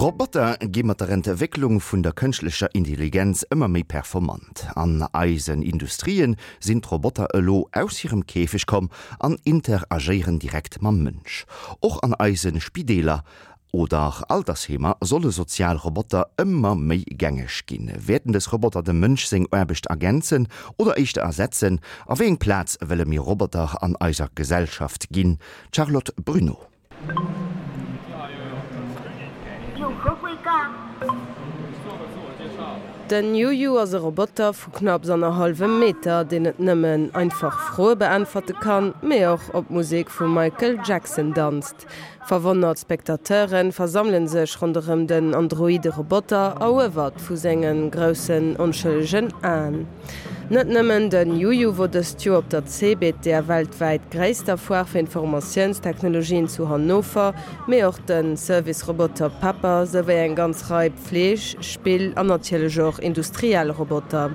Roboter gi mat der Entwécklung vun der kënschtlecher Intelligenz ëmmer méi performant. An eisen Industrien sinn d'Roboter elo aus hirem Käfeg komm an interagéieren direkt mam Mënsch. Och an eise Spideeler oder Altersheemer solle sozial Roboter ëmmer méi gängeg ginn. Wäerten dës Roboter dem Mënsch seng Aarbecht ergänzen oder éischter ersetzen? A wéi eng Plaz wëlle mir Roboter an eiser Gesellschaft ginn? D'Charlotte Bruneau. Den Yuyu ass e Roboter vu knapps annerhallwem Meter, deen net nëmmen einfach Froe beäntwerte kann, mee och op d'Musek vum Michael Jackson danzt. Verwonnert Spectateure versammele sech ronderëm den androide Roboter, eruewert vu senge groussen onschëllegen Aen. Net nëmmen den Juju wor dëst Joer op der CeBIT, der weltwäit gréisster Foire fir Informatiounstechnologien zu Hannover, mee och den Service-Roboter Pepper, souwéi eng ganz Rei Pfleeg-, Spill an natierlech och industriell Roboter.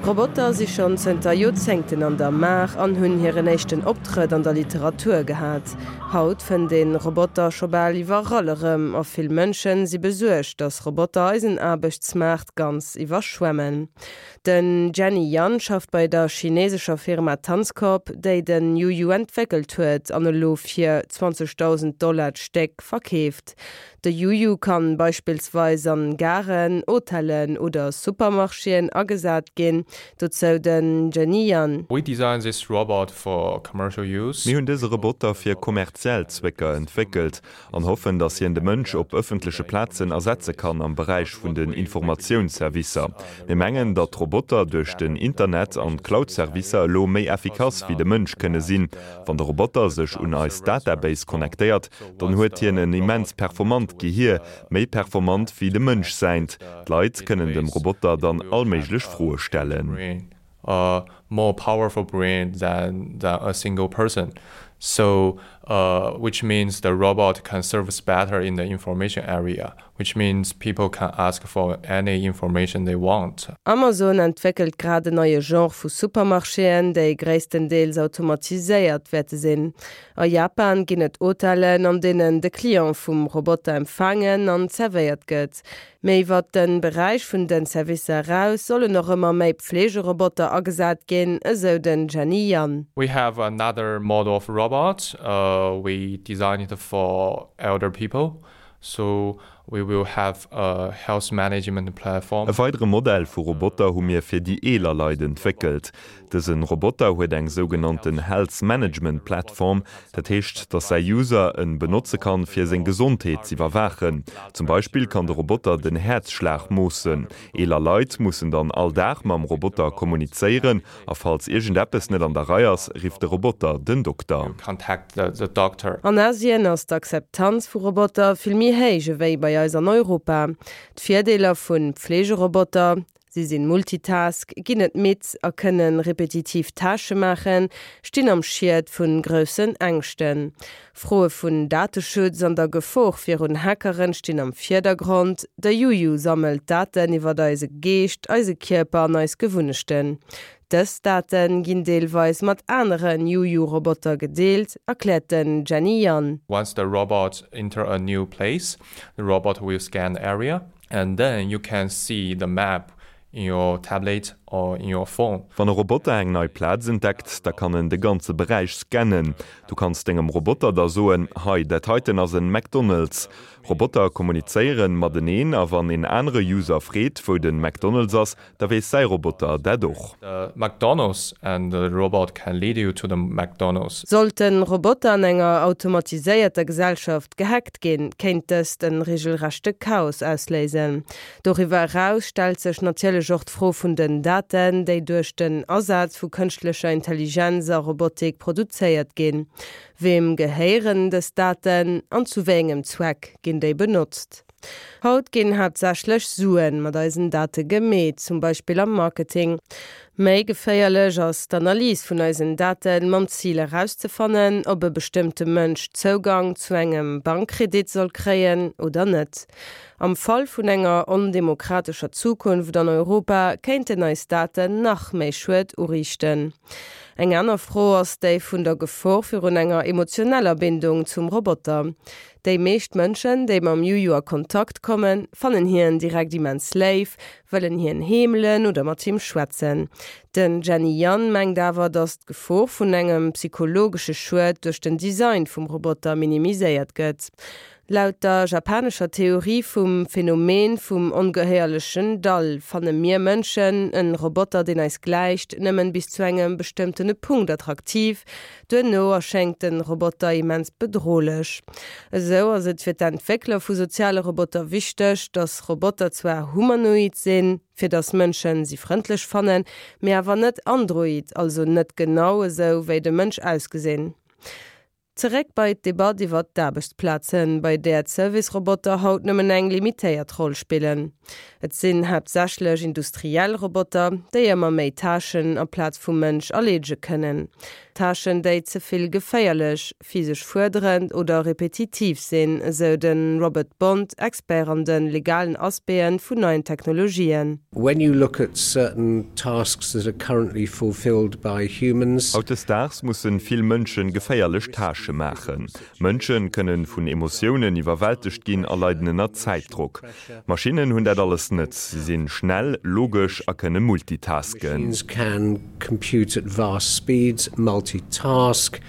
Roboter si schonn zënter Joerzéngten an der Maach an hunn hiren éischten Optrëtt an der Literatur gehat. Haut fënnt een Roboter scho bal iwwerall erëm a vill Mënschen si besuergt, dass Roboter eisen Aarbechtsmaart ganz iwwerschwemmen. Den Jenny Yan schafft bei der chinesescher Firma Tanzcorp, déi den Yuyu entwéckelt huet an elo fir 20.000 Dollar d'Stéck verkeeft. De Yuyu kann beispillsweis an Garen, Hotellen oder Supermarchéen agesat ginn. Dozou den Jenny Yan. We designed this robot for commercial use. Mir hunn dëse Roboter fir kommerziell Zwécker entwéckelt an hoffen, datt hien de Mënsch op ëffentleche Plazen ersetze kann am Beräich vun den Informatiounsservicer. Mir mengen, datt d'Roboter duerch den Internet an d'Cloud-Servicer elo méi effikass wéi de Mënsch kënne sinn. Wann de Roboter sech un eis Database connectéiert, dann huet hien en immens performant Gehier, méi performant wéi dem Mënsch säint. D'Leit kënnen dem Roboter dann all méiglech Froe stellen. A more powerful brain than than a single person, so which means the robot can service better in the information area, which means people can ask for any information they want. Amazon entwéckelt grad en neie Genre vu Supermarchéen, déi gréisstendeels automatiséiert wäerte sinn. A Japan ginn et Hotellen, an deenen de Client vum Roboter empfaangen an zerwéiert gëtt. Mee iwwert de Beräich vun de Servicer eraus sollen och ëmmer méi Pflegeroboter agesat ginn, esou den Jenny Yan. We have another model of robot we designed for elder people. So we will have a health management platform. E weidere Modell vu Roboter hu mir fir déi eeler Leit entwéckelt. Dësen Roboter huet eng sougenannten Health Management Platform, dat heescht, dass säi User en benotze kann, fir seng Gesondheet z'iwwerwaachen. Zum Beispill kann de Roboter den Häerzschlag moossen. Eeler Leit mussen dann all Dag mam Roboter kommunizéieren A falls iergendeppes net an der Rei ass, rifft de Roboter den Dokter. An Asien ass d'Akzeptanz vu Roboter vill méi héich ewéi bei eis an Europa. D'Virdeeler vu Pflegeroboter, Si sinn Multitask, ginn net midd a kënne repetitiv Tâchë maachen, stinn am Schiet vu groussen Ängschten. Froe vun Dateschutz an der Gefor virun Hackeren stinn am Virdergrond. De Juju sammelt Daten iwwert eise Geescht, eise Kierper an eis Gewunnechten. Dës Date ginn deelweis mat anere Juju-Roboter gedeelt, erkläert den Jenny Yan. Once the robot enter a new place, the robot will scan the area and then you can see the map in your tablet or in your phone. Wann e Roboter eng nei Plaz entdeckt, da kann en de ganze Beräich scannen. Du kanns dengem Roboter da soen, Hei, dat heiten ass en McDonald's. Roboter kommunizéieren mateneen a wann en anere User freet, wou den McDonald's ass, da weess säi Roboter dat och. The McDonald's and the robot can lead you to the McDonald's. Sollten Roboter an enger automatiséierter Gesellschaft gehackt ginn, kéint dëst en regelrechte Chaos ausléisen. Doriwwer eraus stellt sech natierlech och d'Fro vun den Daten, déi duerch den Asaz vu kënschtlecher Intelligenz a Robotik produzéiert ginn. Weem gehéieren dës Daten an zu wéi engem Zweck ginn déi benotzt? Haut ginn haaptsächlech Suen mat eisen Date gemeet, zum Beispill am Marketing. Méi geféierlech ass d'Analys vun eisen Daten mam Zil erauszefannen, ob e bestëmmte Mënsch Zougang zu engem Bankkredit soll kréien oder net. Am Fall vun enger ondemokratescher Zukunft an Europa kéinten eis Daten nach méi Schued uriichten. Eng aner Fro ass déi vun der Gefor virun enger emotioneller Bindung zum Roboter. Déi meescht Mënschen, déi mam Juju a Kontakt kommen, fannen hien direkt immens léif, wëllen hien heemelen oder mat him schwätzen. Den Jenny Yan mengt awer, datt d'Gefor vun engem psychologesche Schued duerch den Design vum Roboter minimiséiert gëtt. Laut der japanescher Theorie vum Phänomen vum ongehéierlechen Dall fanne mir Mënschen en Roboter, deen eis gläicht, nëmmen bis zu engem bestëmmtene Punkt attraktiv. Duerno erschéngt den Roboter immens bedrohlech. Esou ass et fir d'Entwéckler vu soziale Roboter wichteg, dass Roboter zwar humanoid sinn, fir dass Mënschen si frëndlech fannen, mee awer net android, also net genau esou wéi de Mënsch ausgesinn. Zeréck bei d'Debatt iwwer d'Aarbechtsplazen, bei där d'Service-Roboter haut nëmmen eng limitéiert Roll spillen. Et sinn haaptsächlech industriell Roboter, déi ëmmer méi Tâchen amplaz vum Mënsch erleedege kënnen. Tâchen, déi ze vill geféierlech, physesch fuerderend oder repetitiv sinn, esou de Robert Bond, Expert an de legalen Aspecte vun neien Technologien. When you look at certain tasks that are currently fulfilled by humans. Hautdesdaags mussen vill Mënschen geféierlech Tâchë maachen. Mënschen kënnen vun Emotiounen iwwerwältegt ginn a leiden ënner Zäitdrock. Maschinnen hunn dat alles net. Si sinn schnell, logesch a kënne multitasken. Machines can compute at vast speeds, multitask,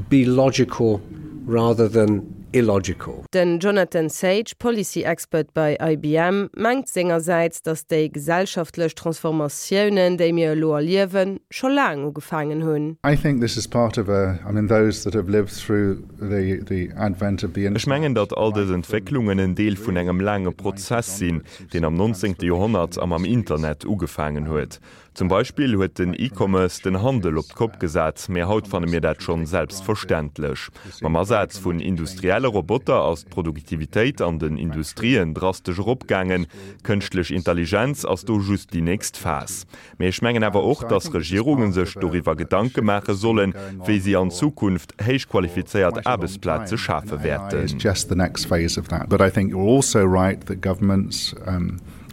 be logical rather than illogical. Den Jonathan Sage, Policy Expert bei IBM, mengt sengersäits, datt déi gesellschaftlech Transformatiounen, déi mir elo erliewen, scho laang ugefaangen hunn. I think this is part of a, I mean those that have lived through the the advent of the Ech mengen, datt all dës Entwécklungen en Deel vun engem laange Prozess sinn, deen am 19. Joerhonnert a mam Internet ugefaangen huet. Zum Beispill huet den E-Commerce den Handel op d'Kopp gesat, mee haut fanne mir dat schonn selbstverständlech. Mam Asaz vun industrielle Roboter ass d'Produktivitéit an den Industrien drastesch eropgaangen. Kënschtlech Intelligenz ass do just déi nächst Phas. Mee ech mengen awer och, dass Regierunge sech doriwwer Gedanke maache sollen, wéi si an Zukunft héich qualifizéiert Aarbechtsplaze schafe wäerten.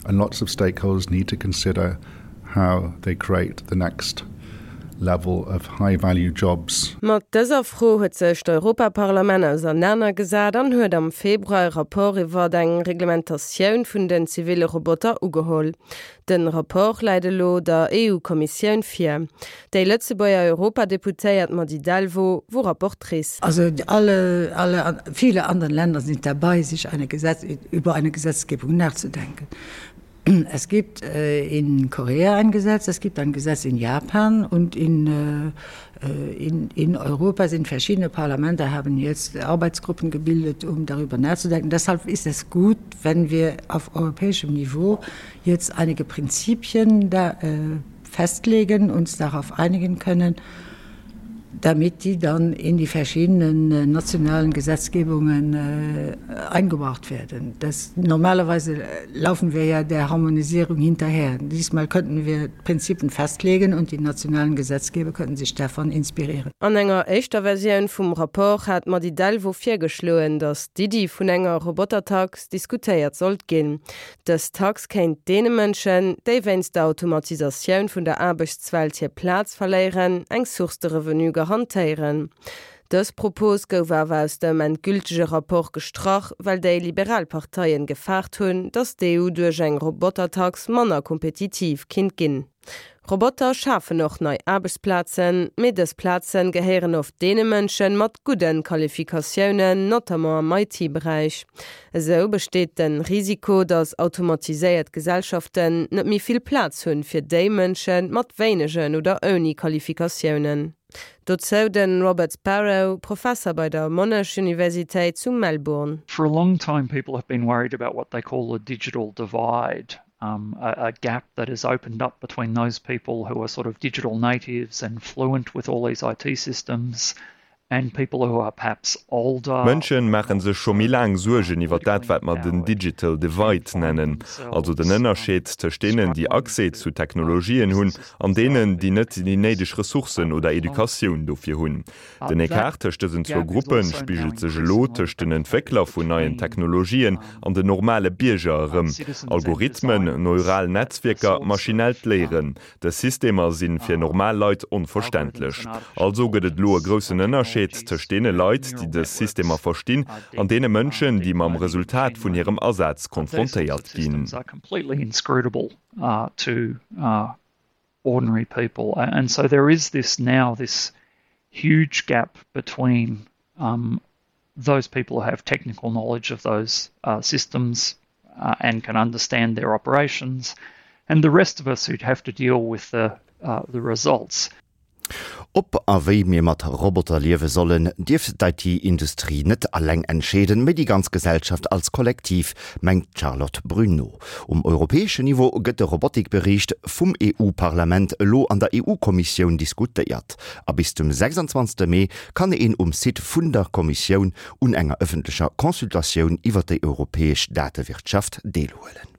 And lots of stakeholders need to consider how they create the next level of high value jobs. Mat dëser Fro huet sech d'Europaparlament ausernaner gesat an huet am Februar e Rapport iwwert eng Reglementatioun vun den ziville Roboter ugeholl. De Rapport läit elo der EU-Kommissioun vir. Déi Lëtzebuerger Europadeputéiert Mady Delvaux wor Rapportrice. Also alle, alle, viele anderen Länder sind dabei, sich eine Gesetz, über eine Gesetzgebung nachzudenken. Es gibt äh, in Korea ein Gesetz, es gibt ein Gesetz in Japan und in, äh, in, in Europa sind verschiedene Parlamente haben jetzt Arbeitsgruppen gebildet, um darüber nachzudenken. Deshalb ist es gut, wenn wir auf europäischem Niveau jetzt einige Prinzipien da, äh, festlegen, uns darauf einigen können, damit die dann in die verschiedenen äh, nationalen Gesetzgebungen äh, eingebracht werden. Das, normalerweise äh, laufen wir ja der Harmonisierung hinterher. Diesmal könnten wir Prinzipien festlegen und die nationalen Gesetzgeber könnten sich davon inspirieren. An enger éischter Versioun vum Rapport hat d'Mady Delvaux virgeschloen, datt d'Iddi vun enger Robotertax diskutéiert sollt ginn. Dës Tax kéint deene Mënschen, déi wéinst der Automatisatioun vun der Aarbechtswelt hir Plaz verléieren, eng Source de revenu garantéieren. Dës Propos gouf awer aus dem endgültege Rapport gestrach, well déi liberal Parteien gefaart hunn, datt d'EU duerch eng Robotertax manner kompetitiv kinnt ginn. Roboter schafen och nei Aarbechtsplazen, mee dës Plazen gehéieren oft deene Mënschen mat gudden Qualifikatiounen, notamment am IT-Beräich. Esou besteet den Risiko, dass automatiséiert Gesellschaften net méi vill Plaz hunn fir déi Mënschen mat wéinegen oder ouni Qualifikatiounen. Dozou den Robert Sparrow, Professer bei der Monash Universitéit zu Melbourne. For a long time people have been worried about what they call the digital divide. um, a, a gap that has opened up between those people who are sort of digital natives and fluent with all these IT systems. And people who are perhaps older. D'Mënsche maache sech scho méi laang Suergen iwwer dat, wat mer den Digital Divide nennen, also den Ënnerscheed tëscht deenen, déi Accès zu Technologien hunn, an deenen, déi net déi néideg Ressourcen oder Educatioun dofir hunn. Den Ecart tëscht dësen zwou Gruppe spigelt sech elo tëscht den Entwéckler vun neien Technologien an den normale Bierger erëm, Algorithmen, neural Netzwierker, maschinellt Léieren. Dës Systemer si fir normal Leit onverständlech. Also gëtt et elo e groussen Ënnerscheed tëscht deene Leit, déi dës Systemer verstinn, an deene Mënschen, déi mam Resultat vun hirem Asaz konfrontéiert ginn. Those people who have technical knowledge of those uh, systems uh, and can understand their operations, and the rest of us who'd have to deal with the, uh, the results. Ob a wéi mir mat Roboter liewe sollen, dierf d'IT-Industrie net alleng entscheeden, mee déi ganz Gesellschaft als Kollektiv, mengt d'Charlotte Bruneau. Um europäeschen Niveau gëtt de Robotikbericht vum EU-Parlament elo an der EU-Kommissioun diskutéiert. A bis zum 26 Mee kann een um Site vun der Kommissioun un enger ëffentlecher Consultatioun iwwer déi europäesch Datewirtschaft deelhuelen.